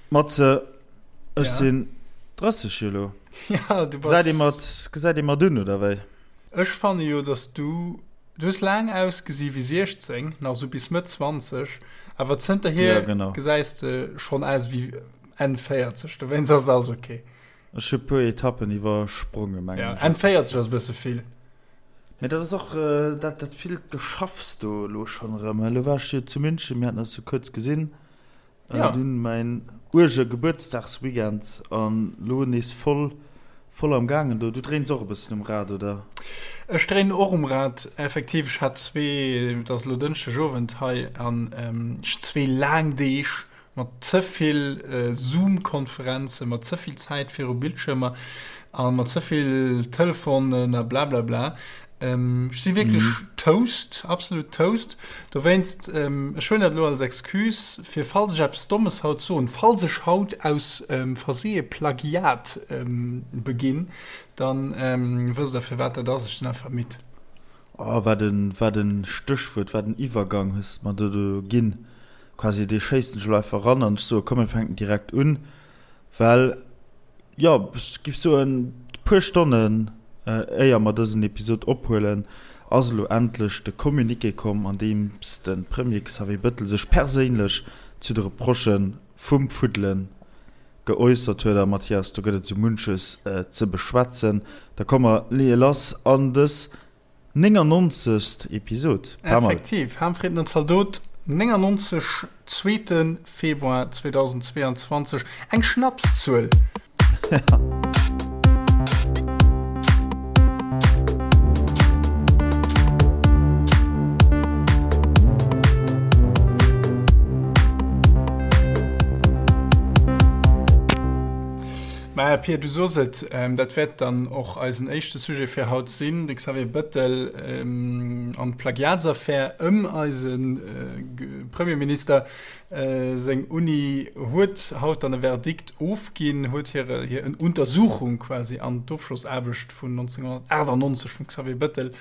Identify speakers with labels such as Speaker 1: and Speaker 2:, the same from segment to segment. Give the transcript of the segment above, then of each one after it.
Speaker 1: Matze, ech sinn 30 elo.
Speaker 2: Ja, du
Speaker 1: bass. Gesäit ee mer, gesäit ee mer dunn, oder wéi?
Speaker 2: Ech fanne jo, dass du, du hues laang ausgesi wéi 16, nach esou bis Mëtt 20, awer zënterhier
Speaker 1: Ja, genau.
Speaker 2: gesäis de schonn aus wéi Enn 40, dowéinst ass alles ok.
Speaker 1: Ech hu puer Etappen iwwerspronge, mengen
Speaker 2: Ja,
Speaker 1: ech.
Speaker 2: Enn 40 ass e bësse vill.
Speaker 1: Mee dat ass och dat, dat villt Geschaffs do elo schonn erëm. Elo war ech jo zu München, mir haten eis jo kuerz gesinn.
Speaker 2: Ja.
Speaker 1: Dunn mäin uerge Gebuertsdagsweekend an lo nees voll voll am gaangen do. Du dréins och e bëssen um Rad, oder?
Speaker 2: Ech dréinen och um Rad, effektiv. Ech hat zwee, et ass elo Dënschdeg Owend hei, an ech zwee laang Deeg mat ze vill Zoom-Konferenzen, mat ze vill Zäit viru Bildschirmer a mat ze vill Telefonen a blablabla. Ech si wierklech toast, absolut toast. Dowéinst, ech huelen dat elo als Excuse, fir falls ech eppes Dommes haut soen, falls ech haut aus Versehe Plagiat beginn, da wësst Der, firwat dat ass. Ech sinn einfach midd.
Speaker 1: Oh, wat e, wat e Stéchwuert, wat en Iwwergang hues de mer do do ginn. Quasi, dee schéissen ech elo einfach eran an ech soe, komm, mir fänken direkt un. Well, jo, ech giff soen, puer Stonnen éier mer dësen Episod ophuelen, ass elo endlech de Communiqué komm, an deems de Premier Xavier Bëttel sech perséinlech zu de Reprochë vum Fuddele geäussert huet. A Mathias, do gëtt et esou munches ze beschwätzen. Da komm mer leeë lass an dës 99. Episod.
Speaker 2: Pas mal. Effektiv, Harmfrieden an Zaldot 99, zweete Februar 2022, eng Schnapszuel. Maja Pir, du sos et, dat wäert dann och eisen éischte Sujet fir haut sinn, de Xavier Bëttel an d'Plagiatsaffär ëm eise Premierminister. Seng Uni huet haut dann e Verdikt ofginn, huet hir hir Untersuchung quasi an d'Ofschlossaarbecht vun 1998 vum Xavier Bëttel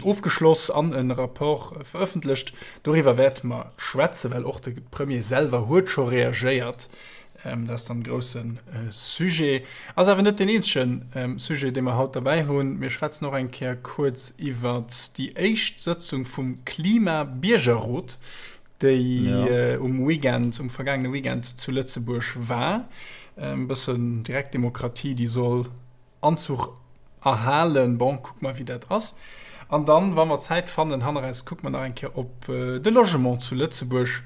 Speaker 2: Ofgeschloss an e Rapport verëffentlecht. Doriwwer wäerte mer schwätzen, well och de Premier selwer huet scho reagéiert. Dat ass dann e grousse Sujet. Ass awer net deen eenzege Sujet, dee mer haut derbäi hunn. Mir schwätzen och eng Kéier kuerz iwwert déi éischt Sëtzung vum Klima-Biergerrot, déi um Weekend, um vergaangene Weekend zu Lëtzebuerg war. E bëssen Direktdemokratie, déi soll Anzuch erhalen. Bon, kucke mer, wéi dat ass. An dann, wa mer Zäit fannen, hanneraus kucke mer nach eng Kéier op de Logement zu Lëtzebuerg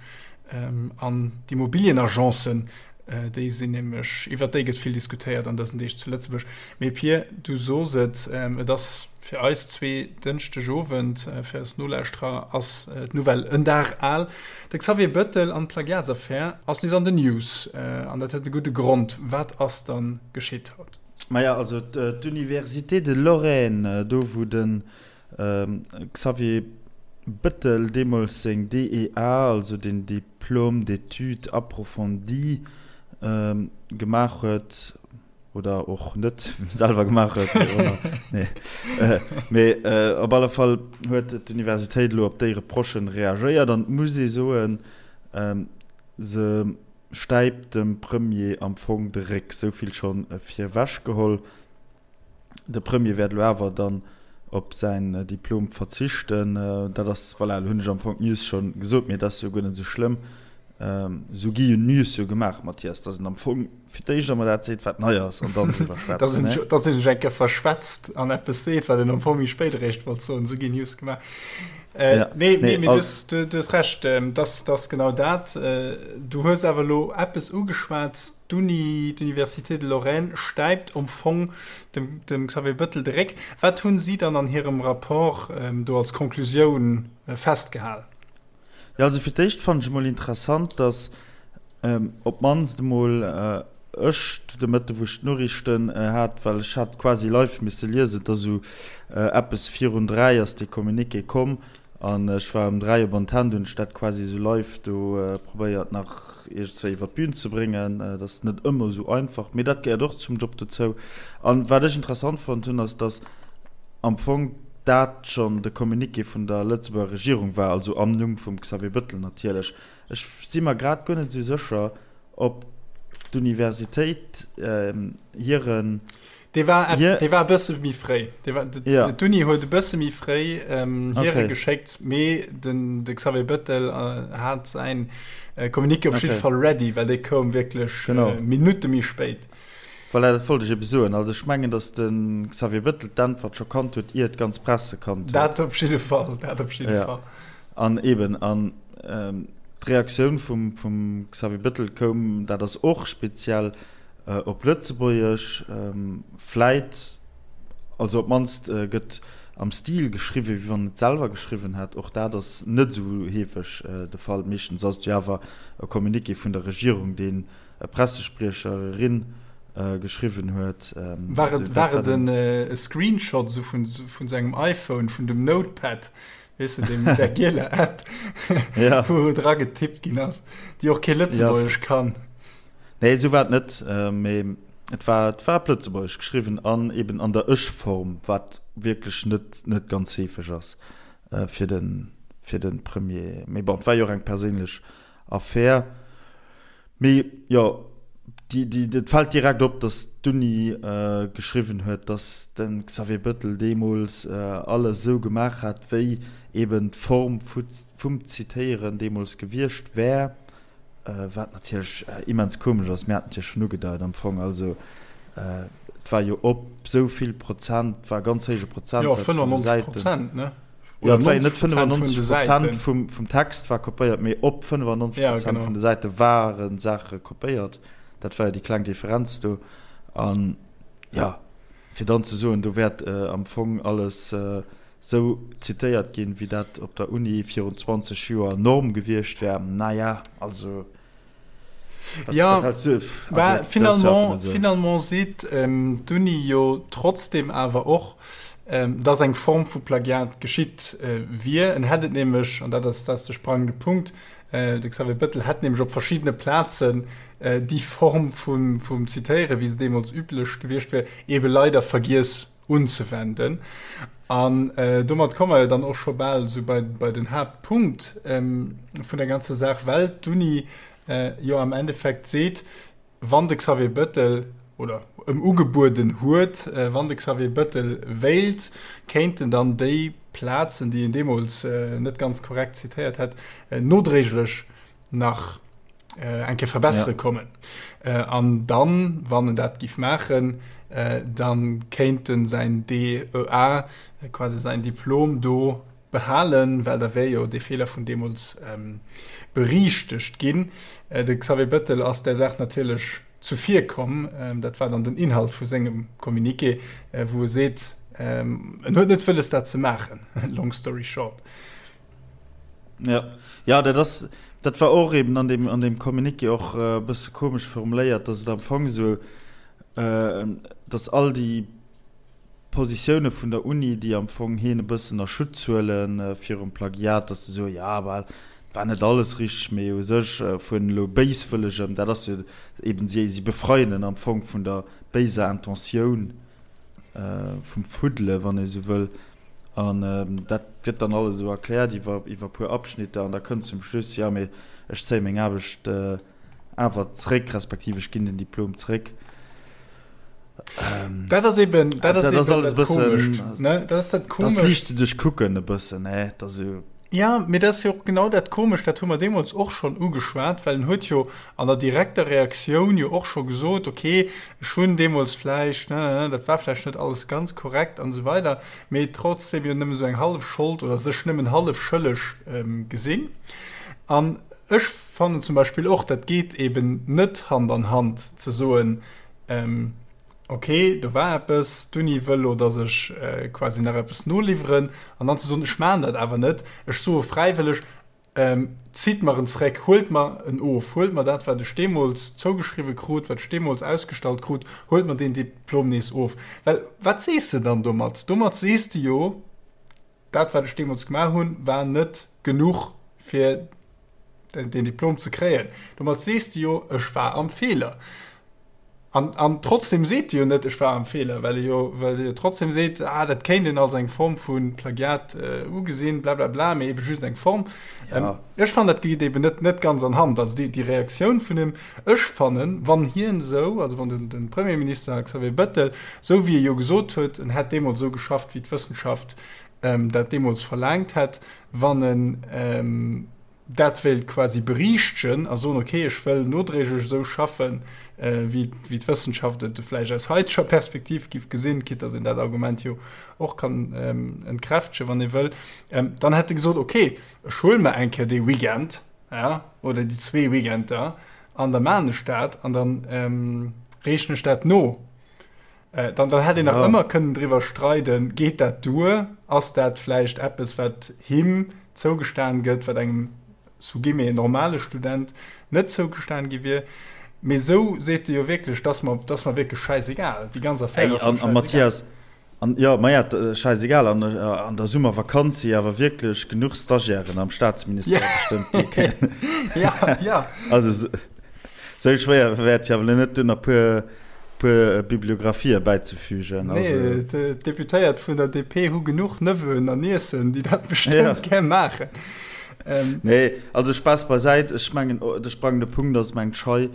Speaker 2: an d'Immobilienagencen. Déi sinn nämlech, iwwert déi gëtt vill diskutéiert an dësen Deeg zu Lëtzebuerg. Mee Pir, du sos et, et ass fir eis zwee Dënschdegowend, fir eis Nolauschterer ass d'Nouvelle en Dag al, De Xavier Bëttel an d'Plagiatsaffär ass nees an den News. An dat huet e gudde Grond. Wat ass dann geschitt haut?
Speaker 1: Maja, also d'Université de Lorraine, do wou de Xavier Bëttel deemools seng DEA, also den Diplôme d'études approfondies, gemaach huet, oder och net selwer gemaach huet, wéi och ëmmer, nee, mee op alle Fall huet d'Universitéit elo op déi Reprochen reagéiert an et muss ee soen, se stäipt dem Premier am Fong de Réck, sou vill scho virewech geholl. De Premier wäert elo awer dann op säin Diplom verzichten. Dat ass, voilà, elo hunn ech am Fong d'News scho gesot, mee et ass jo guer net esou schlëmm. Esou gi jo News jo gemaach, Mathias, datt een am Fong fir d'éischt emol dat seet, wat nei ass, an dann driwwer schwätzen, ne?
Speaker 2: Datt een sech eng Kéier verschwätzt an eppes seet, wat een am Fong méi spéit eréischt wollt soen. Esou ginn News gemaach. Äh, ja. Nee, nee, nee, als... du, du, du hues recht, ähm, das, das genau dat. Äh, du hues awer lo eppes ugeschwat, d'Uni, d'Université de Lorraine stäipt am Fong dem, dem Xavier Bëttel de Réck. Wat hunn si dann an hirem Rapport ähm, do als Konklusioun äh, festgehal?
Speaker 1: Ja, also fir d'éischt fannen ech emol interessant, dass ähm, op d'mannst emol äh, ech de Mëtte wou ech d'Noriichten äh, hat, well ech hat quasi live misse liesen, et ass esou äh, eppes virun 3 ass dee Communiqué komm an ech war um 3 op Antenn, du hunn ech dat quasi esou live do äh, probéiert nach iergendzwéi iwwer d'Bün ze bréngen. Äh, dat ass net ëmmer esou einfach, mee dat gehéiert och zum Job dozou. An wat ech interessant fonnt hunn, ass, dass am Fong dat schonn de Communiqué vun der Lëtzebuerger Regierung war, also am Numm vum Xavier Bëttel natierlech. Ech si mer grad guer net esou sécher. Op d'Universitéit hiren.
Speaker 2: Dee war, dee war e bësse méi fréi. Ja. D'Uni huet e bësse méi fréi ähm, hire okay. geschéckt, mee den de Xavier Bëttel äh, hat säin äh, Communiqué op okay. jidde Fall ready, well dee koum wierklech äh, Minutte méi spéit.
Speaker 1: Voilà, dat wollt ech ebe soen. Also ech mengen, datt de Xavier Bëttel d'Äntwert scho kannt huet, ier d'ganz Press se kannt
Speaker 2: huet. Dat op jidde Fall, dat op jidde ja. Fall.
Speaker 1: An eben, an ähm, D'Reaktioun vum Xavier Bettel koum, dat ass och speziell, op Lëtzebuergesch. Vläit, also op d'mannst gëtt am Stil geschriwwen, wéi wann en et selwer geschriwwen hätt. Och dat ass net esou heefeg de Fall. Meeschtens ass et jo awer e Communiqué vun der Regierung, deen e Pressespriecher, erin geschriwwen huet.
Speaker 2: War et e Screenshot esou vun sengem iPhone, vun dem Notepad, Weess de, deem, där gieler App,
Speaker 1: ja.
Speaker 2: wou dra getippt ginn ass, déi och kee Lëtzebuergesch ja. kann.
Speaker 1: Nee, esou war et net, äh, mee et war, et war op Lëtzebuergesch geschriwwen an eben an der Ech-Form, wat wierklech net, net ganz heefeg ass äh, fir den, fir den Premier. Mee bon, et war jo och eng perséinlech Affär. Mee jo, déi, déi, et fält direkt op, datt d'Uni geschriwwen huet, datt de Xavier Bettel deemools alles esou gemaach hätt, wéi eben d'Form vum Zitéieren deemools gewiescht wär, wat natierlech immens komesch ass. Mir haten et jo schonn ugedeit am Fong. Also et war jo op esou vill Prozent, et war e ganz héije Prozentsaz vun de Säiten.
Speaker 2: Jo, 95 Prozent, ne?
Speaker 1: Jo, et war jo net 95 Prozent vum, vum Text war kopéiert, mee op 95 Prozent ja, genau. vun de Säite ware Saache kopéiert. Dat war jo déi kleng Differenz do. An ja, fir dann ze soen, do wäert äh, am Fong alles äh, sou zitéiert ginn, wéi dat op der Uni virun 20 Joer Norm gewiescht wär, naja, also.
Speaker 2: Ja, bah, finalement, finalement seet ähm, d'Uni jo trotzdem awer och, ähm, dass eng Form vu Plagiat geschitt äh, wier. En hätt et nämlech, an dat ass, dat ass de sprangende Punkt, äh, de Xavier Bettel hätt nämlech op verschiddene Plazen äh, déi Form vum, vum Zitéieren, wéi se deemools üblech gewiescht wär, ebe leider vergiess unzewenden. An domat komme mer jo dann och scho bal esou bei, bei den Haaptpunkt vun der ganzer Saach, well d'Uni jo am Endeffekt seet, wann de Xavier Bettel, oder ëm ugebueden huet, wann de Xavier Bettel wéilt, kéint en dann déi Plazen, déi en deemools net ganz korrekt zitéiert hätt, nodréiglech nach eng Kéier verbessere ja. kommen. Äh, an dann, wann en dat giff maachen, äh, dann kéint en säin DEA, äh, quasi säin Diplom do behalen, well da wär jo dee Feeler vun deemools ähm, beriichtegt ginn. Äh, de Xavier Bettel ass där Saach natierlech zuvirkomm. Ähm, dat war dann den Inhalt vu sengem Communiqué, äh, wou e seet, ähm, en huet net wëlles dat ze maachen. Long story short.
Speaker 1: Ja, ja dat ass, dat war och eben an dem, an dem Communiqué och e bësse komesch formuléiert, dass et am Fong esou, dass all déi Positioune vun der Uni, déi am Fong hien e bëssen a Schutz huele virum Plagiat, dass se soen, jo, bah, et war net alles richteg, mee u sech vun elo béiswëllegem, dat ass jo eben, si, si befreien en am Fong vun der béiser Intentioun, vum Fuddele, wann ee sou wëll. An dat gëtt dann alles esou erkläert iwwer iwwer puer Abschnitter an da kënnt zum Schluss, jo mee ech zéie meng Aarbecht awer zréck, respektiv ech ginn den Diplom zréck.
Speaker 2: Dat ass eben, dat ass eben dat Komescht, ne? Dat ass dat
Speaker 1: Komescht. Dat liicht ze duerchkucken e bëssen, ne? Dat ass esou.
Speaker 2: Ja, mee dat ass jo och genau dat Komescht, dat hu mer deemools och schonn ugeschwat, well en huet jo an der direkter Reaktioun jo och scho gesot, okay, ech hunn deemools vläicht, ne, dat war vläicht net alles ganz korrekt an esou weider, mee trotzdem jo nëmme esou eng hallef Schold oder sech nëmmen hallef schëlleg gesinn. An ech fannen zum Beispill och, dat geet eeben net Hand an Hand ze soen, Ok, do war eppes, d'Uni wëll lo, dass ech quasi nach eppes noliwweren, an dann ze soen, ech maachen dat awer net, ech soe fräiwëlleg, zitt mer en zréck, huelt mer en of, huelt mer dat, wat ech deemools zougeschriwwe krut, wat ech deemools ausgestallt krut, huelt mer deen Diplom nees of. Well wat sees de dann domat? Domat sees de jo, dat wat ech deemools gemaach hunn, war net genuch fir den Diplom ze kréien. Domat sees de jo, ech war am Feeler. An, an trotzdem seet e jo net, ech war am Feeler, well e jo, well e jo trotzdem seet, ah, dat kéint een als eng Form vu Plagiat äh, ugesinn, bla bla bla, mee ebe just eng Form. Ja. Ähm, ech fannen, dat geet eben net, net ganz an Hand. Also déi, déi Reaktioun vun him, ech fannen, wann hien esou, also wann den, den Premierminister Xavier Bettel, esou wéi e jo gesot huet, en hätt deemools esou geschafft, wéi d'Wëssenschaft ähm, dat deemools verlaangt hätt, wann en ähm, dat wéilt quasi beriichtegen a soen, okay, ech wëll nodréiglech esou schaffen, wéi wéi d'Wëssenschaft et vläicht aus haiteger Perspektiv giff gesinn, quitte dass een dat Argument jo och kann entkräftegen, wann ee wëll, dann hätt e gesot, okay, ech huele mer eng Kéier dee Weekend, ja, oder déi zwee Weekender an da maachen ech dat an da reechen ech dat no. Dann, dann hätt een nach ëmmer kënnen driwwer streiden, geet dat duer? Ass dat vläicht eppes, wat him zougestan gëtt, wat engem sous guillemets normale Student net zougestan gi wier? Mee esou seet e jo wierklech, 't ass mer, 't ass mer wierklech schäisegal, déi ganz Affär
Speaker 1: ass mer schäisegal. A Mathias, an, jo, maja, schäisegal, an an der Summervakanz si awer wierklech genuch Stagiairen am Staatsministère bestëmmt, déi kënnen.
Speaker 2: Ja, ja.
Speaker 1: Also, Sou schwéier wäert jo awer net dunn e puer puer Bibliographië bäizefügen.
Speaker 2: Nee, d'Deputéiert vun der DP hu genuch Neveuen an Niecen, déi dat bestëmmt gär maachen.
Speaker 1: Nee, also Spaass beisäit, ech mengen, de sprangende Punkt ass, mengt ech hei,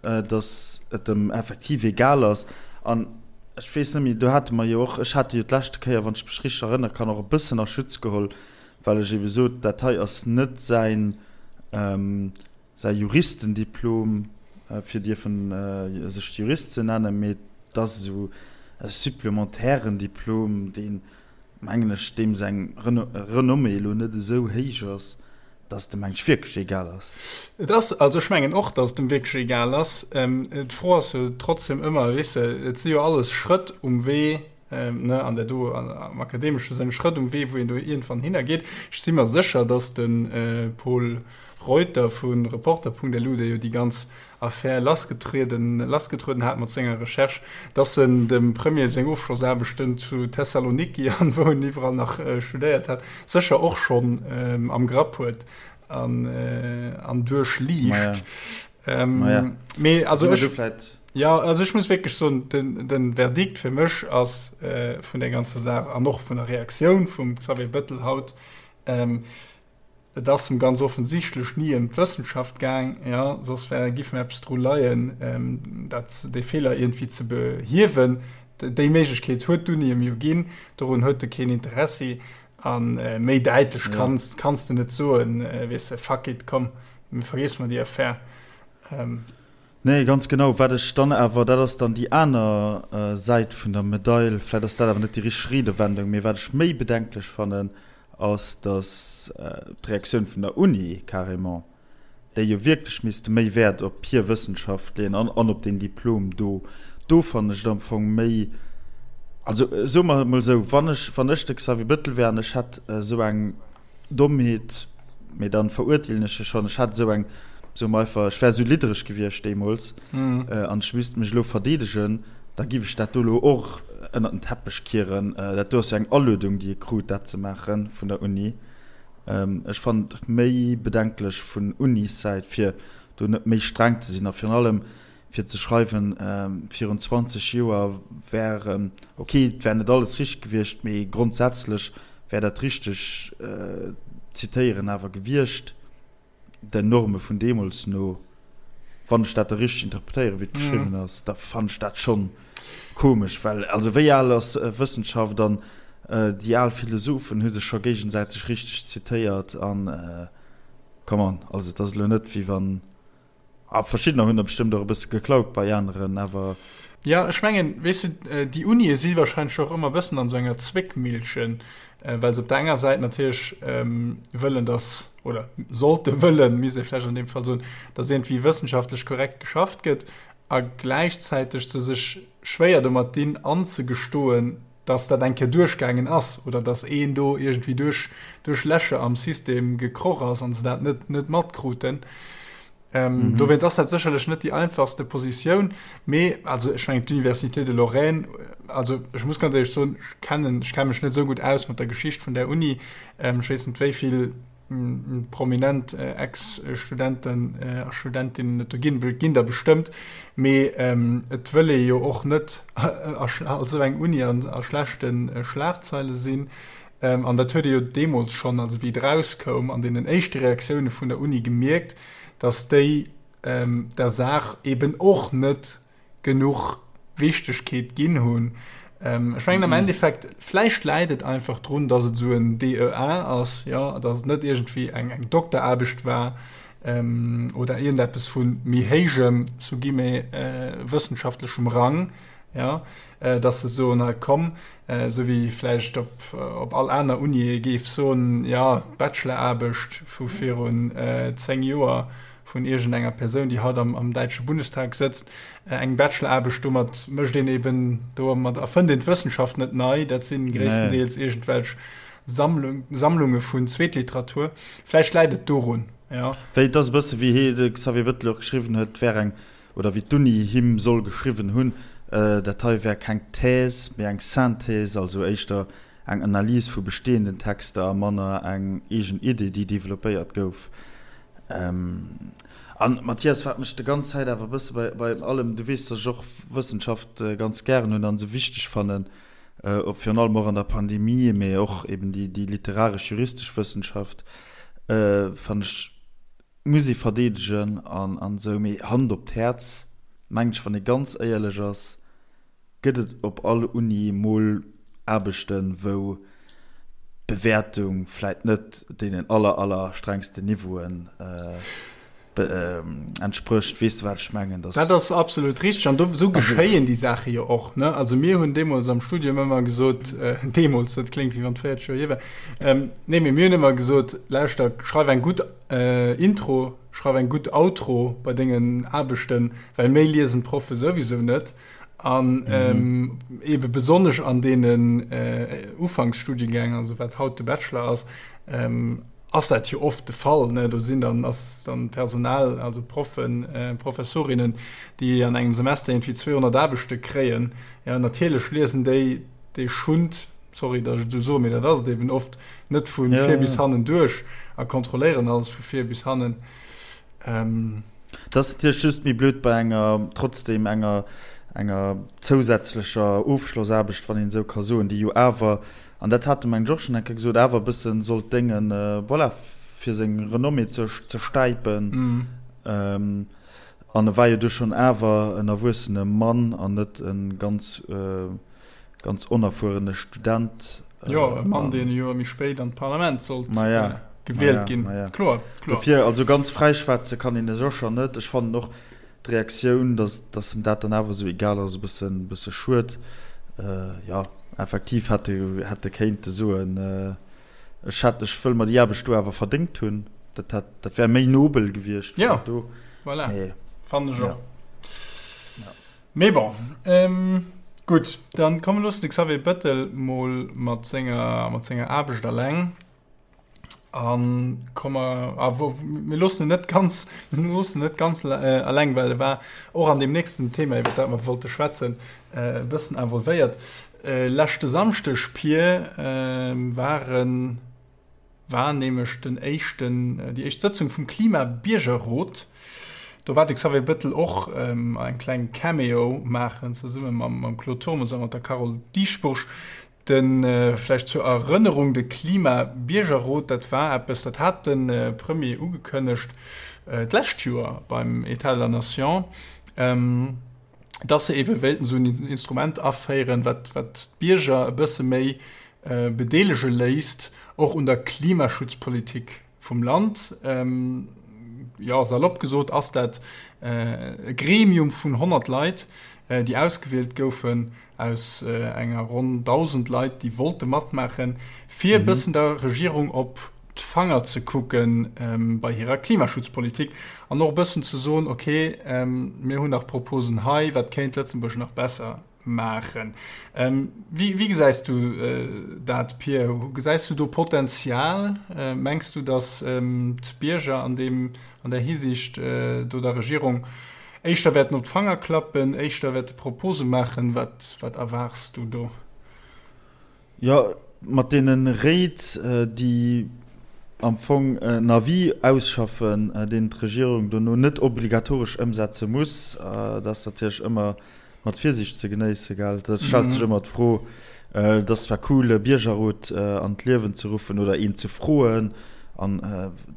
Speaker 1: datt et em effektiv egal ass. An ech weess net méi, do hate mer jo och, ech hat e jo d'leschte Kéier, wann ech mech richteg erënnere kann, och e bëssen a Schutz geholl, well ech ebe sot, dat hei ass net säin, säi Juristendiplom, fir dierfen sech Jurist ze nennen, mee et ass esou e supplementairen Diplom, deen, mengen ech, deem seng Renommée elo net esou héich ass, dass et em mengen ech wierklech egal ass.
Speaker 2: Et ass, also ech mengen och, dass et em wierklech egal ass. D'Fro ass jo trotzdem ëmmer, weess de, et si jo alles Schrëtt um Wee, ne, an der do am akademesche Sënn Schrëtt um Wee, wou een do iergendwann hinner geet. Ech si mer sécher, dass de Pol Reuter vu Reporter.lu, dee jo déi ganz Affär lassgetrieden lassgetrueden hat mat senger Recherche, dass en dem Premier seng Ofschlossaarbechten zu Thessaloniki an wou en iwwerall nach studéiert hat, sécher och schonn am Grapp huet an an duerchliicht. Mee also ech, ja, also ech muss wierklech soen, den den Verdikt fir mech ass vun där ganzer Saach an och vun der Reaktioun vum Xavier Bettel haut, Et ass em ganz offensichtlech ni ëm d'Wëssenschaft gaang, jo, soss wär, giff mir eppes dru leien, dat, dee Feeler iergendwéi ze behiewen. Déi Méiglechkeet huet d'Uni em jo ginn, dorun huet e keen Interessi. A méi däitlech kanns, kanns de net soen, weess de, fuck it, komm, vergiesse mer déi Affär.
Speaker 1: Nee, ganz genau. Wat ech dann awer, dat ass dann déi aner Säit vun der Medail, vläicht ass dat awer net déi richteg Riedewendung, mee wat ech méi bedenklech fannen, ass, datt d'Reaktioun vun der Uni carrément, déi jo wierklech misste méi Wäert op hir Wëssenschaft leeën an an op deen Diplom do, do fannen ech et am Fong méi, also soe mer et mol esou, wann ech, wann ech de Xavier Bettel wär an ech hätt esou eng Dommheet, mee dann verurteelen ech e schonn, ech hätt esou eng, soe mer einfach, ech wär esou liddereg gewiescht deemools an ech misst mech elo verdeedegen, da giff ech dat do elo och ënnert den Teppech kieren. Dat do ass jo eng Aluedung, déi e krut, dat ze maachen vun der Uni. Ech fannen et méi bedenklech vun Unissäit, fir do net méi streng ze sinn a virun allem fir ze schreiwen, virun 20 Joer wär, ok, et wär net alles richteg gewiescht, mee grondsätzlech wär dat richteg Zitéieren awer gewiescht, den Norme vun deemools no, wann ech dat da richteg interpretéieren, wéi et geschriwwen ass, da fannen ech dat schonn komesch, well also wéi al ass Wëssenschaft an déi al Philosophen hu sech scho géigesäiteg richteg zitéiert an come on, also et ass elo net wéi wann. A verschiddener hunn der bestëmmt och e bësse geklaut bei aneren, awer.
Speaker 2: Jo, ech mengen, weess de, déi Unie si wahrscheinlech och ëmmer e bëssen an esou enger Zwéckmillchen, well se op der enger Säit natierlech wëllen, dass, oder sollte wëllen, misst ee vläicht an deem Fall soen, dass iergendwéi wëssenschaftlech korrekt geschafft gëtt a gläichzäiteg se sech schwéier domat dinn anzegestoen, dass dat eng Kéier duerchgaangen ass oder dass een do iergendwéi duerch, duerch Lächer am System gekroch ass an se dat net, net matkruten. Ähm, mhm. Dowéinst ass dat sécherlech net déi einfachste Positioun, mee also ech mengen d'Université de Lorraine, also ech muss ganz éierlech soen, ech kennen, ech kenne mech net esou gutt aus mat der Geschicht vun där Uni. Ähm, ech weess net wéi vill. prominent Ex-Studenten a Studentinnen et do ginn. Et ginn der bestëmmt, mee et wëll ee jo och net als esou eng Uni a schlechte Schlagzeile sinn. An dat huet ee jo deemools schonn, also wéi et erauskoum, an deenen éischte Reaktioune vun der Uni gemierkt, datt déi der Saach eben och net genuch Wichtegkeet ginn hunn. Ech mengen am Endeffekt, vläicht läit et einfach drun, datt et esou en DEA ass, jo, datt et net iergendwéi eng eng Dokteraarbecht war oder iergendeppes vu méi héijem, sous guillemets, wëssenschaftlechem Rang, jo, datt se soen, hei komm, esou wéi vläicht op op all aner Uni ee géif soen, jo, d'Bacheloraarbecht vu virun 10 Joer vun iergendenger Persoun, déi haut am, am däitsche Bundestag sëtzt, eng Bacheloraarbecht, domat mécht een eben, domat erfënnt een d'Wëssenschaft net nei, dat si gréisstendeels iergendwelch Sammlung, Sammlunge vun Zweetliteratur. Vläicht läit et dorun,
Speaker 1: jo. Wéi, et ass e bësse wéi hee, de Xavier Bettel och geschriwwen huet, et wär eng, oder wéi d'Uni him soll geschriwwen hunn, dat hei wär keng Thèse, mee eng Synthèse, also éischter eng Analys vu bestehenden Texter a manner eng eegen Idee, déi developpéiert gouf. An Mathias, wat mech de ganz Zäit awer e bësse bei, bei allem, du weess, datt ech och Wëssenschaft ganz gären hunn a se wichteg fannen, virun allem och an der Pandemie, mee och eben déi, déi literaresch-juristesch Wëssenschaft fannen ech, muss ee verdeedegen an, an esou. Mee Hand op d'Häerz, mengen ech, wann ee ganz éierlech ass, Gëtt et op all Uni mol Aarbechten, wou d'Bewäertung vläit net deenen aller, aller strengsten Niveauen entsprécht? Weess de, wat ech mengen?
Speaker 2: Dat ass absolut richteg. An do, esou geschéien déi Saache jo och, ne? Also mir hunn deemools am Studium ëmmer gesot, deemools, dat kléngt, wéi wann et 40 Joer hier wär, nee, mee mir hunn ëmmer gesot, Lauschter, schreif eng gutt Intro, schreif eng gutt Outro bei dengen Aarbechten, well méi liesen d'Proffe souwisou net. An mhm. ebe besonnesch an deenen äh, Ufanksstudiengäng, also wat haut de Bachelor ass, ähm, ass dat jo oft de Fall. Ne? Do sinn dann ass dann Personal, also Proffen, äh, Professorinnen, déi an engem Semester irgendwie 200 Aarbechte kréien. Ja, natierlech liesen déi dee Schund, sorry, datt ech et esou soen, mee dat ass et eben oft, net vu ja, vir bis hannen duerch a kontrolléieren alles vu vir bis hannen.
Speaker 1: Ähm, Dat ass natierlech just méi blöd bei enger, trotzdem enger, enger zousätzlecher Ofschlossaarbecht, wann een esou ka soen, déi jo awer, an dat hat de mengen ech och schonn eng Kéier gesot, awer e bësse sollt déngen, voilà, fir seng Renommée ze, ze stäipen. An e war jo du schonn awer en erwuessene Mann an net e ganz, ganz onerfuerene Student.
Speaker 2: Jo, e Mann, deen e Joer méi spéit an d'Parlament sollt gewielt ginn.
Speaker 1: Kloer, kloer. Dofir, also ganz fräischwätze kann een e sécher net. Ech fannen och d'Reaktioun, datt, datt em dat dann awer esou egal ass, e bëssen, bësse schued. Jo, effektiv hätt e, hätt e kéinte soen, ech hätt, ech wëll mer déi Aarbecht do awer verdéngt hunn. Dat hätt, dat wär méi nobel gewiescht.
Speaker 2: Jo, voilà, fannen ech och. Mee bon, gutt, dann komm mir loossen de Xavier Bettel mol mat senger, mat senger Aarbecht alleng a komm mer, a wou, mir loossen en net ganz, mir loossen en net ganz alleng, well e war och an deem nächsten Thema, iwwer dat mer wollte schwätzen, e bëssen involvéiert. Leschte Samschdeg, Pir, waren. war nämlech den éischten, déi éischt Sëtzung vum Klima-Biergerrot. Do war de Xavier Bettel och eng kleng Cameo maachen, zesumme mam Claude Turmes a mat der Carole Dieschbourg. De, vläicht zur Erënnerung, de Klima-Biergerrot, dat war eppes, dat hat de Premier ugekënnegt d'lescht Joer beim État de la Nation, dass se eebe wéilten esou en Instrument aféieren, wat d'Bierger e bësse méi bedeelege léisst, och un der Klimaschutzpolitik vum Land. Jo, salopp gesot ass dat e Gremium vun 100 Leit, déi ausgewielt goufen aus enger ronn 1.000 Leit, déi wollte matmaachen, fir e bëssen der Regierung op d'Fanger ze kucke bei hirer Klimaschutzpolitik an och e bëssen ze soen, okay, mir hunn nach Proposen hei, wat kéint Lëtzebuerg nach besser maachen. Wéi gesäis du dat, Pir? Gesäis du do Potenzial? Mengs du, datt d'Bierger an deem, an där Hisiicht do der Regierung éischter wäerten op d'Fanger klappen, éischter wäerte Propose maachen? Wat, wat erwaarts du do?
Speaker 1: Jo, mat deene Réit, déi. am Fong en Avis ausschaffen, deen d'Regierung dono net obligatoresch ëmsetze muss. Dat ass natierlech ëmmer mat Virsiicht ze genéissen, gell? Da stellt sech ëmmer d'Fro, et ass zwar cool, e Biergerrot an d'Liewen ze ruffen oder een ze froen an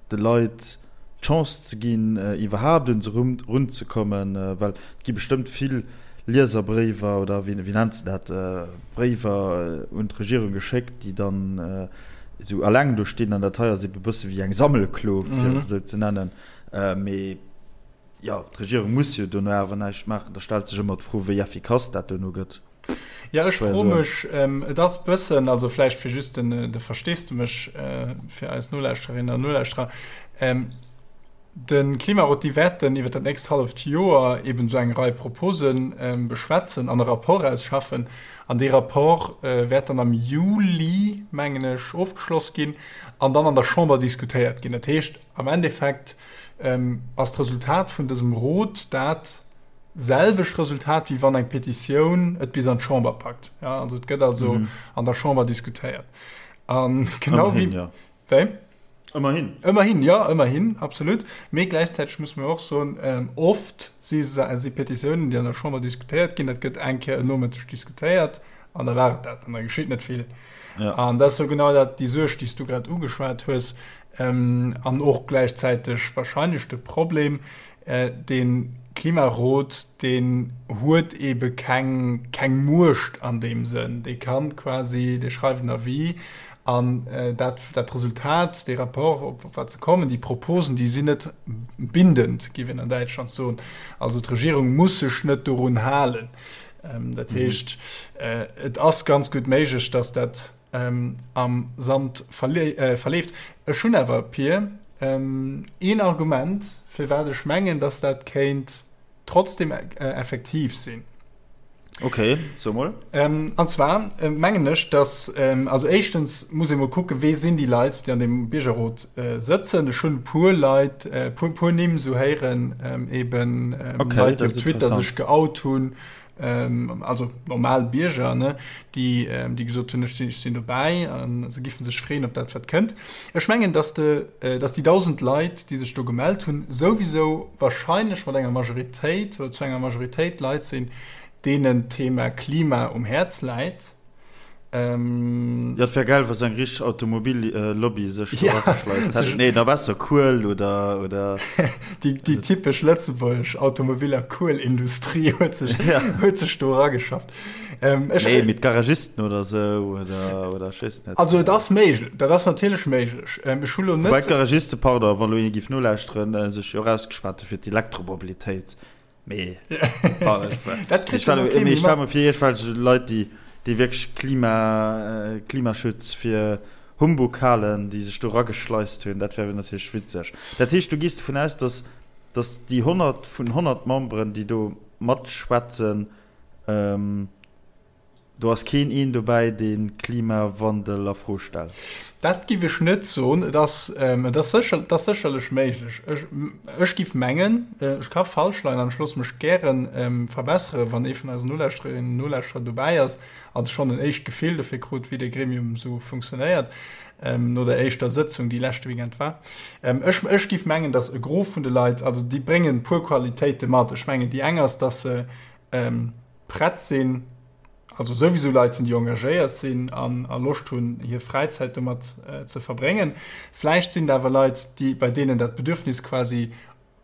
Speaker 1: de Leit d'Chance ze ginn, iwwerhaapt un se erunzekommen, well et gi bestëmmt vill Lieserbréiwer oder wéi nennt se dat, Bréiwer un d'Regierung geschéckt, déi dann esou alleng do stinn an dat hei ass ebe bësse wéi eng Sammelklo, fir et esou ze nennen. Mee jo, d'Regierung muss jo dono awer näischt maachen. Da stellt sech ëmmer d'Fro, wéi effikass dat dono gëtt.
Speaker 2: Ja, ech froe mech, et ass bëssen, also vläicht fir just den, de Versteesdemech fir eis Nolauschterinnen an Nolauschterer, De Klimarot, déi wäerten iwwer dat nächst halleft Joer eben esou eng Rei Propose beschwätzen an e Rapport ausschaffen. An dee Rapport wäert dann am Juli, mengen ech, ofgeschloss ginn an dann an der Chamber diskutéiert ginn. Dat heescht, am Endeffekt ass d'Resultat vun dësem Rot dat selwecht Resultat, wéi wann eng Petitioun et bis an d'Chamber packt. Also et gëtt also an der Chamber diskutéiert. A genau wéi. Wéi?
Speaker 1: Ëmmerhin.
Speaker 2: Ëmmerhin, jo, ëmmerhin, absolut. Mee gläichzäiteg muss mer och soen, oft si si Petitiounen, déi an der Chamber diskutéiert ginn, dat gëtt eng Kéier en Nomëtteg diskutéiert an da war et dat an da geschitt net vill. Ja. An dat ass jo genau dat, déi Suerg, déi s du grad ugeschwat hues, an och gläichzäiteg wahrscheinlech de Problem, Dee Klimarot, deen huet eebe keng, keng Muecht an deem Sënn. Dee kann quasi, dee schreift en Avis an dat, dat Resultat, dee Rapport, op wat se kommen, déi Proposen, déi sinn net bindend, géif een an Däitschland soen. Also d'Regierung muss sech net dorun halen. Dat heescht, et ass ganz gutt méiglech, datt dat am Sand verleeft. Ech hunn awer, Pir, een Argument, firwat ech mengen, dass dat kéint trotzdem effektiv sinn.
Speaker 1: Ok, so mol.
Speaker 2: An zwar mengen ech, dass, also éischtens muss ee mol kucken, wee sinn déi Leit, déi an deem Biergerrot sëtzen. Ech hunn e puer Leit, e puer Nimm esou héieren, eben Leit, déi op Twitter sech geout hunn, ähm, also normal Bierger, ne, déi, ähm, déi gesot hunn, ech sinn, ech sinn dobäi an se giffen sech freeën op dat, wat kënnt. Ech mengen, dass de, äh, dass déi 1.000 Leit, déi sech do gemellt hunn, souwisou wahrscheinlech mat enger Majoritéit oder zu enger Majoritéit Leit sinn, deenen d'Thema Klima um Häerz läit.
Speaker 1: Ähm, ja, et wär geil, wa sou eng richteg Automobillobby sech do erageschleist hätt. Nee, da besser Kuel oder, oder.
Speaker 2: Déi, déi typesch lëtzebuergesch Automobil a Kuelindustrie huet sech, ja. huet sech do erageschafft.
Speaker 1: Ähm, ech, nee, mit Garagisten oder sou, oder, oder ech weess
Speaker 2: net. Also, et ass méiglech, dat ass natierlech méiglech. Ähm, ech hu lo net.
Speaker 1: Wobei d'Garagiste, pardon, wa lo ee giff nolauschteren, sech jo och ausgeschwat hu fir d'Elektromobilitéit. Mee dat kritt jo kee méi mat. Fir iergendwelch Leit, déi, déi wierklech Klima, Klimaschutz fir Humbug halen, déi sech do erageschleist hunn, dat wär natierlech witzeg. Dat heescht, du gees dovun aus, datt, datt déi 100 vun 100 Memberen, déi do matschwätzen, Do ass keen een dobäi, dee Klimawandel a Fro stellt.
Speaker 2: Dat giff ech net soen. Et ass, et ass sécher, et ass sécherlech méiglech. Ech, ech giff mengen, ech ka falsch leien an ech loosse mech gäre verbesseren, wann ee vun eisen Nolauschtererinnen an Nolauschterer dobäi ass an schonn en éischt Gefill dofir krut, wéi dee Gremium esou funktionéiert, no der éischter Sëtzung, déi leschte Weekend war. Ech, ech giff mengen, datt e Gros vun de Leit, also déi bréngen e puer Qualitéite mat. Ech mengen, déi eng ass, datt se prett sinn, also souwisou Leit sinn, déi engagéiert sinn an a Loscht hunn, hir Fräizäit domat ze verbréngen. Vläicht sinn et awer Leit, déi, bei deenen dat Bedürfnis quasi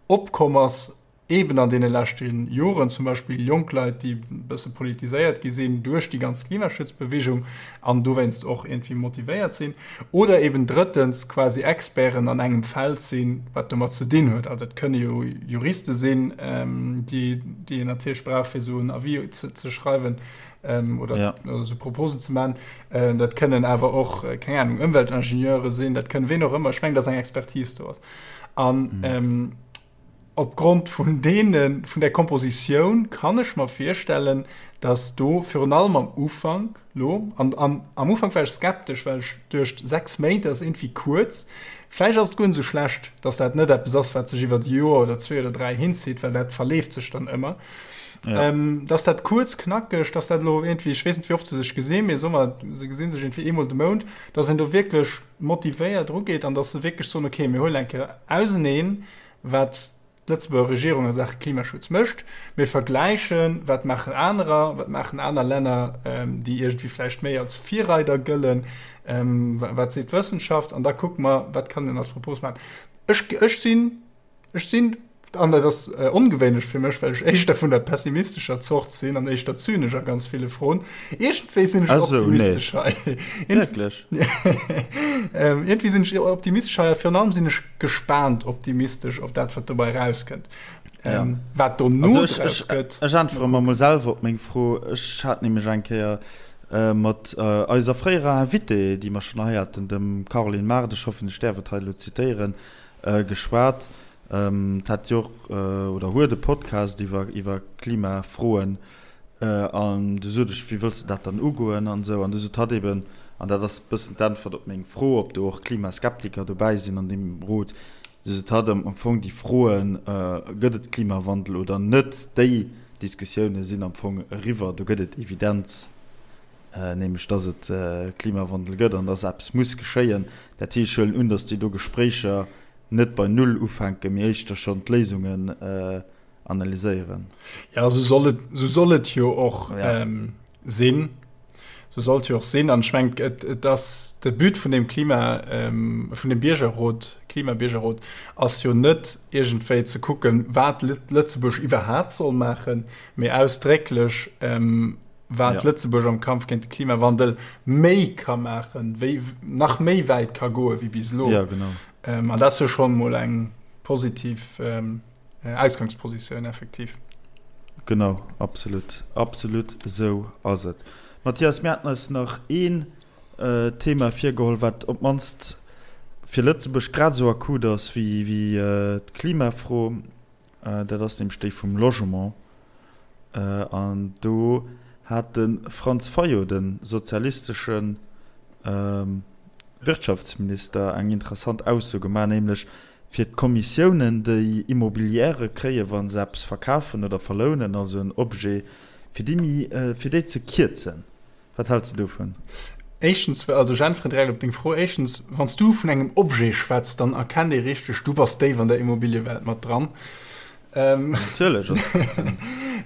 Speaker 2: opkomm ass, eeben an deene leschte Joren, zum Beispill jonk Leit, déi e bësse politiséiert gi sinn duerch déi ganz Klimaschutzbewegung an dowéinst och iergendwéi motivéiert sinn. Oder eben drëttens quasi Experten an engem Feld sinn, wat domat ze dinn huet. Also dat kënne jo Juriste sinn, déi déi een natierlech brauch, fir esou en Avis ze, ze schreiwen oder, ja. oder esou Proposen ze maachen. Dat kënnen awer och, keng Ahnung, Ëmweltingenieure sinn, dat kënnen ween och ëmmer. Ech mengen, dass eng Expertise do ass. An mhm. Opgrond vun deene, vun där Kompositioun kann ech mer virstellen, datt do virun allem am Ufank lo, an, an am Ufank war ech skeptesch, well ech duecht, 6 Méint ass iergendwéi kuerz, vläicht ass et guer net esou schlecht, datt dat net eppes ass, wat sech iwwert e Joer oder zwee oder dräi hinzitt, well dat verleeft sech dann ëmmer.
Speaker 1: Ja.
Speaker 2: Datt dat kuerz, knackeg, datt dat elo iergendwéi, ech weess net, wéi oft se sech gesinn, mee soe mer, se gesi sech iergendwéi eemol de Mount, datt een do wierklech motivéiert erugeet an datt se wierklech soen, okay, mir huelen eng Kéier auseneen, wat d'Lëtzebuerger Regierung a Saache Klimaschutz mécht. Mir vergläichen, wat maachen anerer, wat maachen aner Länner, déi iergendwéi vläicht méi als Virreider gëllen, wat seet d'Wëssenschaft, an da kucke mer, wat kann een als Propos maachen. Ech, ech sinn, ech sinn, an dat ass ongewéinlech fir mech, well ech éischter vun der pessimistescher Zort sinn an éischter zynesch a ganz ville Froen, iergendwéi sinn ech optimistesch hei.
Speaker 1: Wierklech?
Speaker 2: Iergendwéi sinn ech optimistesch hei a virun allem sinn ech gespaant optimistesch op dat, wat dobäi erauskënnt.
Speaker 1: Ja.
Speaker 2: Ähm, wat dono
Speaker 1: Also ech,
Speaker 2: draus
Speaker 1: ech,
Speaker 2: gëtt.
Speaker 1: ech äntwere mer mol selwer op meng Fro. Ech hat nämlech eng Kéier äh, mat äh, eiser fréierer Invitée, déi mer schonn hei haten, dem Caroline Mart, ech hoffen, ech däerf et hei elo zitéieren, äh, geschwat. Ähm, d'hat jo och, äh, oder huet e Podcast iwwer, iwwer Klimafroen. An du sot ech, wéi wëlls de dat dann ugoen an esou. An du sot hatt eben, an dat ass e bëssen d'Äntwert op meng Fro, ob do och Klimaskeptiker dobäi sinn an deem Rot, du sot hatt am Fong déi Froen, gëtt et Klimawandel oder net, déi Diskussioune sinn am Fong eriwwer, do gëtt et Evidenz, nämlech datt et Klimawandel gëtt an datt eppes muss geschéien. Dat heescht, ech huelen un, datt déi do Gespréicher net bei Null ufänken, mee éischter schonn d'Léisungen analyséieren.
Speaker 2: Ja, sou soll et, sou soll et jo och
Speaker 1: ja.
Speaker 2: ähm, sinn. Sou soll et jo och sinn. An ech mengen, et, et ass de But vun dem Klima, ähm, vun dem Biergerrot, Klimabiergerrot, ass jo net iergendwéi ze kucken, wat Lëtzebuerg iwwerhaapt soll maachen, mee ausdrécklech, ähm, wat
Speaker 1: ja.
Speaker 2: Lëtzebuerg am Kampf géint de Klimawandel méi ka maachen, wéi nach méi wäit ka goe wéi bis elo.
Speaker 1: Ja, genau.
Speaker 2: Ähm, an dat ass jo schonn mol eng positiv ähm, Ausgangspositioun effektiv.
Speaker 1: Genau, absolut, absolut esou ass et. Mathias, mir haten eis nach een Thema virgeholl, wat op d'mannst fir Lëtzebuerg grad esou akut ass wéi d'Klimafro. Dat ass nämlech déi vum Logement. An do hat de Franz Fayot, de sozialistesche Wirtschaftsminister, eng interessant Ausso gemaach, nämlech fir d'Kommissiounen, déi Immobilièrë kréien, wa se eppes verkafen oder verlounen, also en Objet, fir déi méi, fir déi ze kierzen. Wat häls de dovun?
Speaker 2: Éischtens, also ech äntweren direkt op deng Fro. Éischtens, wann s du vun engem Objet schwätz, dann erkennt ee richteg, du bass déif an der Immobiliewelt mat dran.
Speaker 1: Natierlech.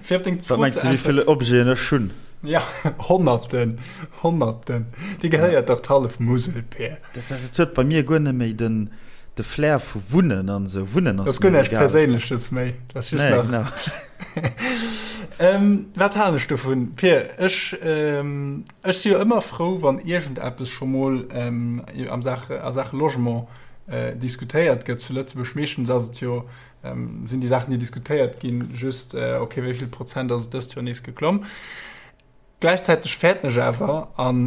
Speaker 2: Fir op deng
Speaker 1: Wat
Speaker 2: Fro
Speaker 1: mengs
Speaker 2: ze
Speaker 1: de, wéi
Speaker 2: äntweren.
Speaker 1: vill Objeten ech hunn?
Speaker 2: Ja, Honnerten, Honnerten. Dir gehéiert dach d'hallef Musel, Peer.
Speaker 1: Dat huet bei mir guer net méi den de Flair vu Wunnen an esou. Wunnen
Speaker 2: Dat
Speaker 1: ass
Speaker 2: ass guer
Speaker 1: mir
Speaker 2: näischt
Speaker 1: egal.
Speaker 2: Perséinleches méi. Dat ass just
Speaker 1: Nee,
Speaker 2: nach.
Speaker 1: genau.
Speaker 2: Ähm, wat halen ech dovun? Peer, ech, ähm, ech si jo ëmmer frou, wann iergendeppes scho mol ähm, am Sache, a Saache Logement äh, diskutéiert gëtt zu Lëtzebuerg. Meeschtens ass et jo Sinn déi Saachen, déi diskutéiert ginn, just, ok, wéi vill Prozent ass et dëst Joer nees geklomm? Gläichzäiteg fäerten ech awer, an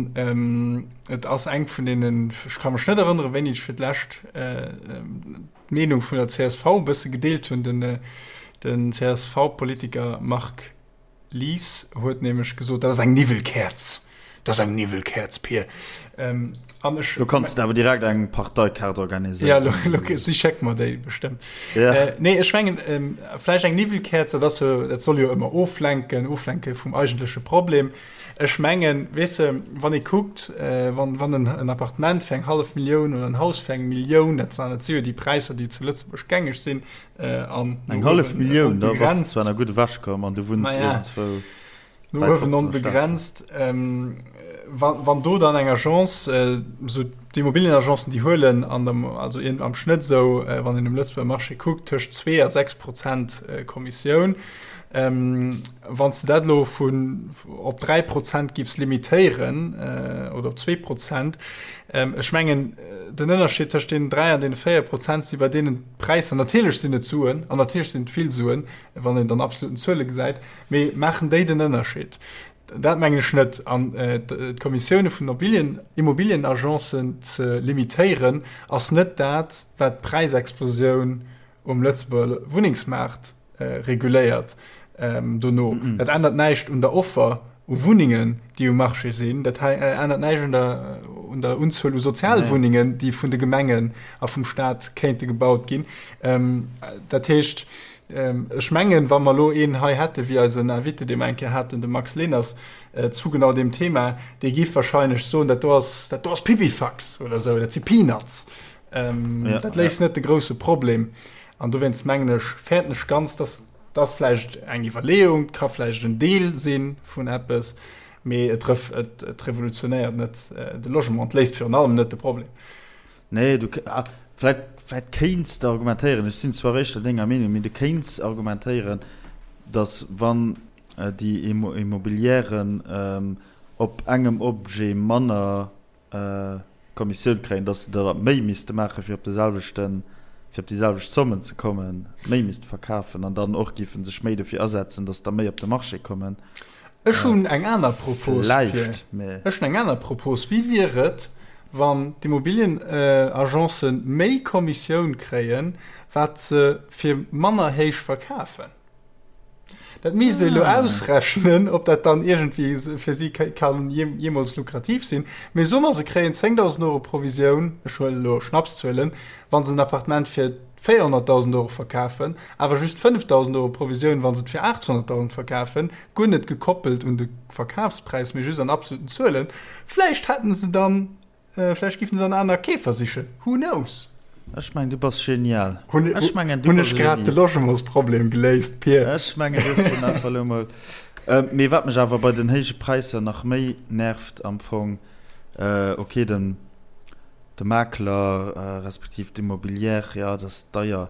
Speaker 2: et ass eng vun deenen, ech ka mech net erënneren, wéini ech fir d'lescht d'Meenung vun der csv e bësse gedeelt hunn, den CSV-Politiker Marc Lies huet nämlech gesot, dat ass eng Niwwelkäerz, dat ass eng Niwwelkäerz, Pir. Ähm, an ech.
Speaker 1: Lo kanns de awer direkt eng Parteikaart organiséieren.
Speaker 2: Ja, lo, lo, si schéckt mer déi bestëmmt.
Speaker 1: Ja.
Speaker 2: Äh, nee, ech mengen, ähm, vläicht eng Niwwelkäerz, dat ass jo, dat soll jo ëmmer oflenken, oflenke vum eigentleche Problem. Ech mengen, weess de, wann ee kuckt, äh, wann, wann en, en Appartement fir eng hallef Millioun oder en Haus fir eng Millioun, dat sinn, dat si jo déi Präisser, déi zu Lëtzebuerg gängeg sinn,
Speaker 1: Äh, Eng hallef Millioun, da bass de zwar nach gutt ewechkomm an du wunns iergendzwou
Speaker 2: No uewen onbegrenzt. Ähm, wann, wann do dann eng Agence, äh, so d'Immobilienagencen, déi huelen an dem, also irgend am Schnëtt sou, äh, wann een um Lëtzebuerger Marché kuckt, tëscht 2 a 6 Prozent äh, Kommissioun. Ähm, wann s de dat elo vun op 3 Prozent giffs limitéieren, äh, oder op 2 Prozent, ähm, ech mengen, den Ënnerscheed tëscht deenen 3 an deene 4 Prozent si bei deenen D'Präisser, natierlech sinn et Suen an natierlech sinn et vill Suen, wann een dann absoluten Zuele gesäit, mee maachen déi den Ënnerscheed? Dat mengen ech net. An d'Kommissioune vun Immobilienagencen ze limitéieren, ass net dat, wat d'Präisexplosioun. um Lëtzebuerger Wunnengsmaart reguléiert dono. Dat ännert näischt un der Offer u Wunnengen, déi um Marché sinn. Dat ännert näischt un der, un der Unzuel u Sozialwunnengen, déi vun de Gemengen a vum Staat kéinte gebaut ginn. Dat heescht, ech mengen, wa mer elo een hei hätte wéi eisen Invité, dee mer eng Kéier haten, de Max Leners, zu genau deem Thema, dee géif wahrscheinlech soen, dat do ass, dat do ass Pipifax oder esou, dat si Peanuts. Dat léist net de grousse Problem. An dowéinst mengen ech, fäerten ech ganz, dass dat ass vläicht eng Iwwerleeung, et ka vläicht en Deel si vun eppes, mee et et revolutionéiert net de Logement, et léist virun allem net de Problem.
Speaker 1: Nee, du, vläicht, vläicht kéints de argumentéieren, ech sinn zwar éischter denger Meenung, mee du kéints argumentéieren, dass wann déi Immobilièren op engem Objet manner Kommissioun kréien, dass se der méi misste maachen, fir op de selwechten, fir op déi selwecht Zommen ze kommen, méi misste verkafen an dann och géife sech méi dofir asetzen, dass der méi op de Marché kommen.
Speaker 2: Ech hunn eng aner Propos, Pierre. Ech hunn eng aner Propos. Wéi wier et, wann d'Immobilienagencen méi Kommissioun kréien, wat se fir manner héich verkafen? Dat misst ee elo ausrechnen, ob dat dann iergendwéi fir si kann jeemools lukrativ sinn. Mee soe mer, se kréien 10.000 Euro Provisioun, ech huelen elo Schnapszuelen, wa se en Appartement fir 400.000 Euro verkafen, awer just 5.000 Euro Provisioun, wa se et fir 800.000 verkafen, guer net gekoppelt un de Verkafspräis, mee just an absoluten Zuelen. Vläicht hätten se dann Vläicht giffen se an aner Keefer sichen, who knows?
Speaker 1: Ech mengen du bass genial.
Speaker 2: Hunn
Speaker 1: Ech mengen
Speaker 2: du hunn ech grad de Logementsproblem geléist, Pir?
Speaker 1: Ech mengen du hues den einfach elo mol. Mee wat mech awer bei den héije Präisser nach méi nervt am Fong, ok den de Makler respektiv d'Immobilière, jo dat ass deier,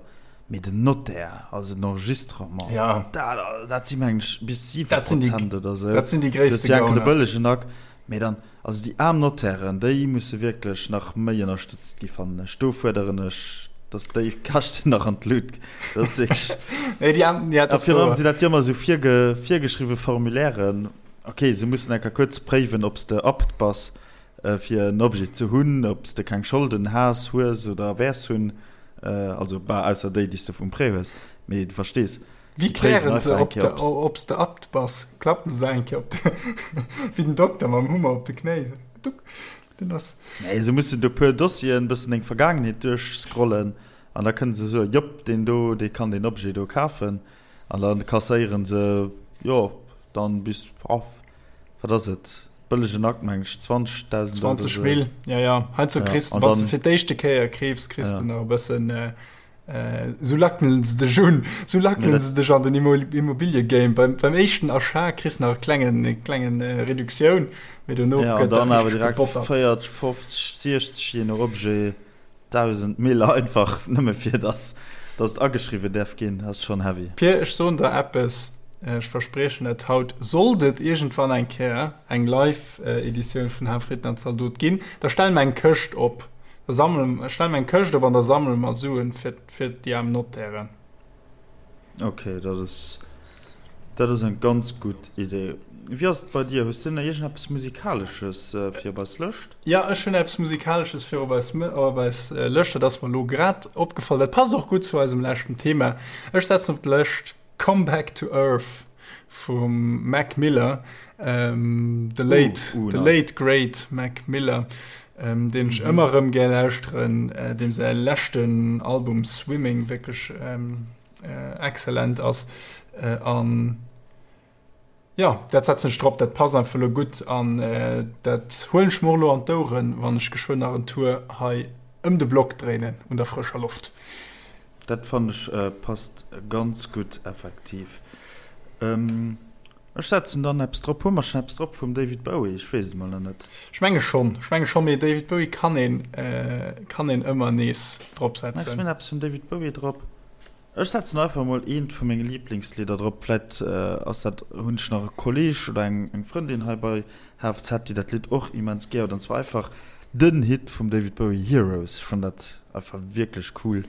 Speaker 1: mee den Notaire, also den Enregistrement, dat dat si mengen ech bis 7 Prozent oder
Speaker 2: sou. Dat sinn déi gréisste Gauner.
Speaker 1: De bëllegen Akt, mee dann Also déi aarm Notairen, déi musse wierklech nach méi ënnerstëtzt gi fannen ech. Do fuerderen ech, datt déi Käschten nach an d'Lut. Dat ass wierklech.
Speaker 2: Nee, déi aarm, ja,
Speaker 1: dat ass wouer. Virun allem sinn dat jo ëmmer esou virge, virgeschriwwe Formulairen. Ok, se mussen eng Kéier kuerz préiwen, ob s de apte bass, fir en Objet ze hunn, ob s de keng Scholden has, hues oder wäers hunn. Also, bah, ausser déi, déi s de vum Prêt hues. Mee du verstees.
Speaker 2: Wéi klären se, ob s de apt bass? Klappen se eng Kéier op de, wéi den Dokter mam Hummer op de Knéi? Duck,
Speaker 1: den ass. Nee, se mussen do puer Dossieren, bëssen deng Vergaangenheet duerchscrollen an da kënne se soen, jop, deen do, dee kann deen Objet do kafen. An da kasséieren se, jo, dann bis, wat ass et, bëllegen Akt, meng ech, 20.000
Speaker 2: Euro. 20 Mille, ja, ja. Heiansdo kriss de, wann s de fir d'éischte Kéier keefs, kriss de nach e bëssen. Sou lackelen se dech un, sou lackelen se dech an den Immobiliegame. Beim, beim éischten Achat kriss nach e klengen, e klengen Reduktioun, mee dono
Speaker 1: ja, gëtt dann awer direkt 40, 50, 60, je no Objet, 1000 Mille einfach nëmme fir dass, dass et ageschriwwen däerf ginn. Dat ass schonn heavy.
Speaker 2: Pir, ech soen der eppes, ech verspriechen et haut, sollt et iergendwann eng Kéier eng Live-Editioun vun Hafrieden an Zaldot ginn, da stelle mer eng Këscht op. Da sammelen, ech stelle mer eng Këscht op an da sammele mer Suen fir, fir déi aarm Notairen.
Speaker 1: Ok, dat ass, dat ass eng ganz gutt Idee. Wéi ass et bei dir? Hues de nach iergendeppes Musikalesches fir op eis Lëscht?
Speaker 2: Jo, ech hunn eppes Musikalesches fir op eis, op eis Lëscht. Dat ass mer elo grad opgefall. Dat passt och gutt zu eisem leschten Thema. Ech setzen op d'Lëscht Come Back to Earth vum Mac Miller, ähm, the late, uh, uh, the late great Mac Miller, ähm, deen ech mhm. ëmmer erëm gär lauschteren, äh, deem säi leschten Album Swimming wierklech ähm, äh, excellent ass. Äh, an ja, dat setzen ech drop, dat passt einfach lo gutt an äh, dat huelen ech mer lo an d'Oueren, wann ech geschwënn nach en Tour hei ëm de Block dréinen un der frëscher Loft.
Speaker 1: Dat fannen ech passt ganz gutt effektiv. Ech setzen dann eppes drop. Hu mer schon eppes drop vum David Bowie? Ech weess et mol nach net.
Speaker 2: Ech menge schonn, ech menge schonn, mee David Bowie kann een, kann een ëmmer nees drop setzen.
Speaker 1: Ech hunn eppes vum David Bowie drop. Ech setzen einfach mol eent vu menge Liiblingslidder drop. Vläit ass dat, hunn ech nach e Kolleg oder eng Frëndin hei bei HFZ, déi dat Lidd och immens gär huet, an zwar einfach den Hit vum David Bowie Heroes. Ech fannen dat einfach wierklech cool.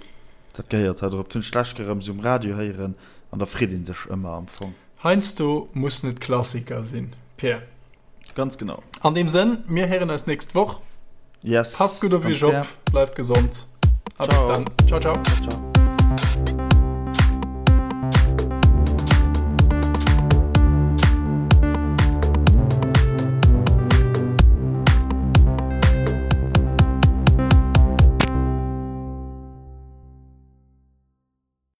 Speaker 1: Dat gehéiert hei drop. Dat hunn ech d'lescht Kéier erëm esou um Radio héieren an da freet ee sech ëmmer am Fong.
Speaker 2: Heiansdo mussen et Klassiker sinn, Pierre.
Speaker 1: Ganz genau.
Speaker 2: An deem Sënn, mir héieren eis nächst Woch.
Speaker 1: Yes.
Speaker 2: Passt gutt op iech op, bleift gesond a bis dann. Ciao, ciao.
Speaker 1: Ciao.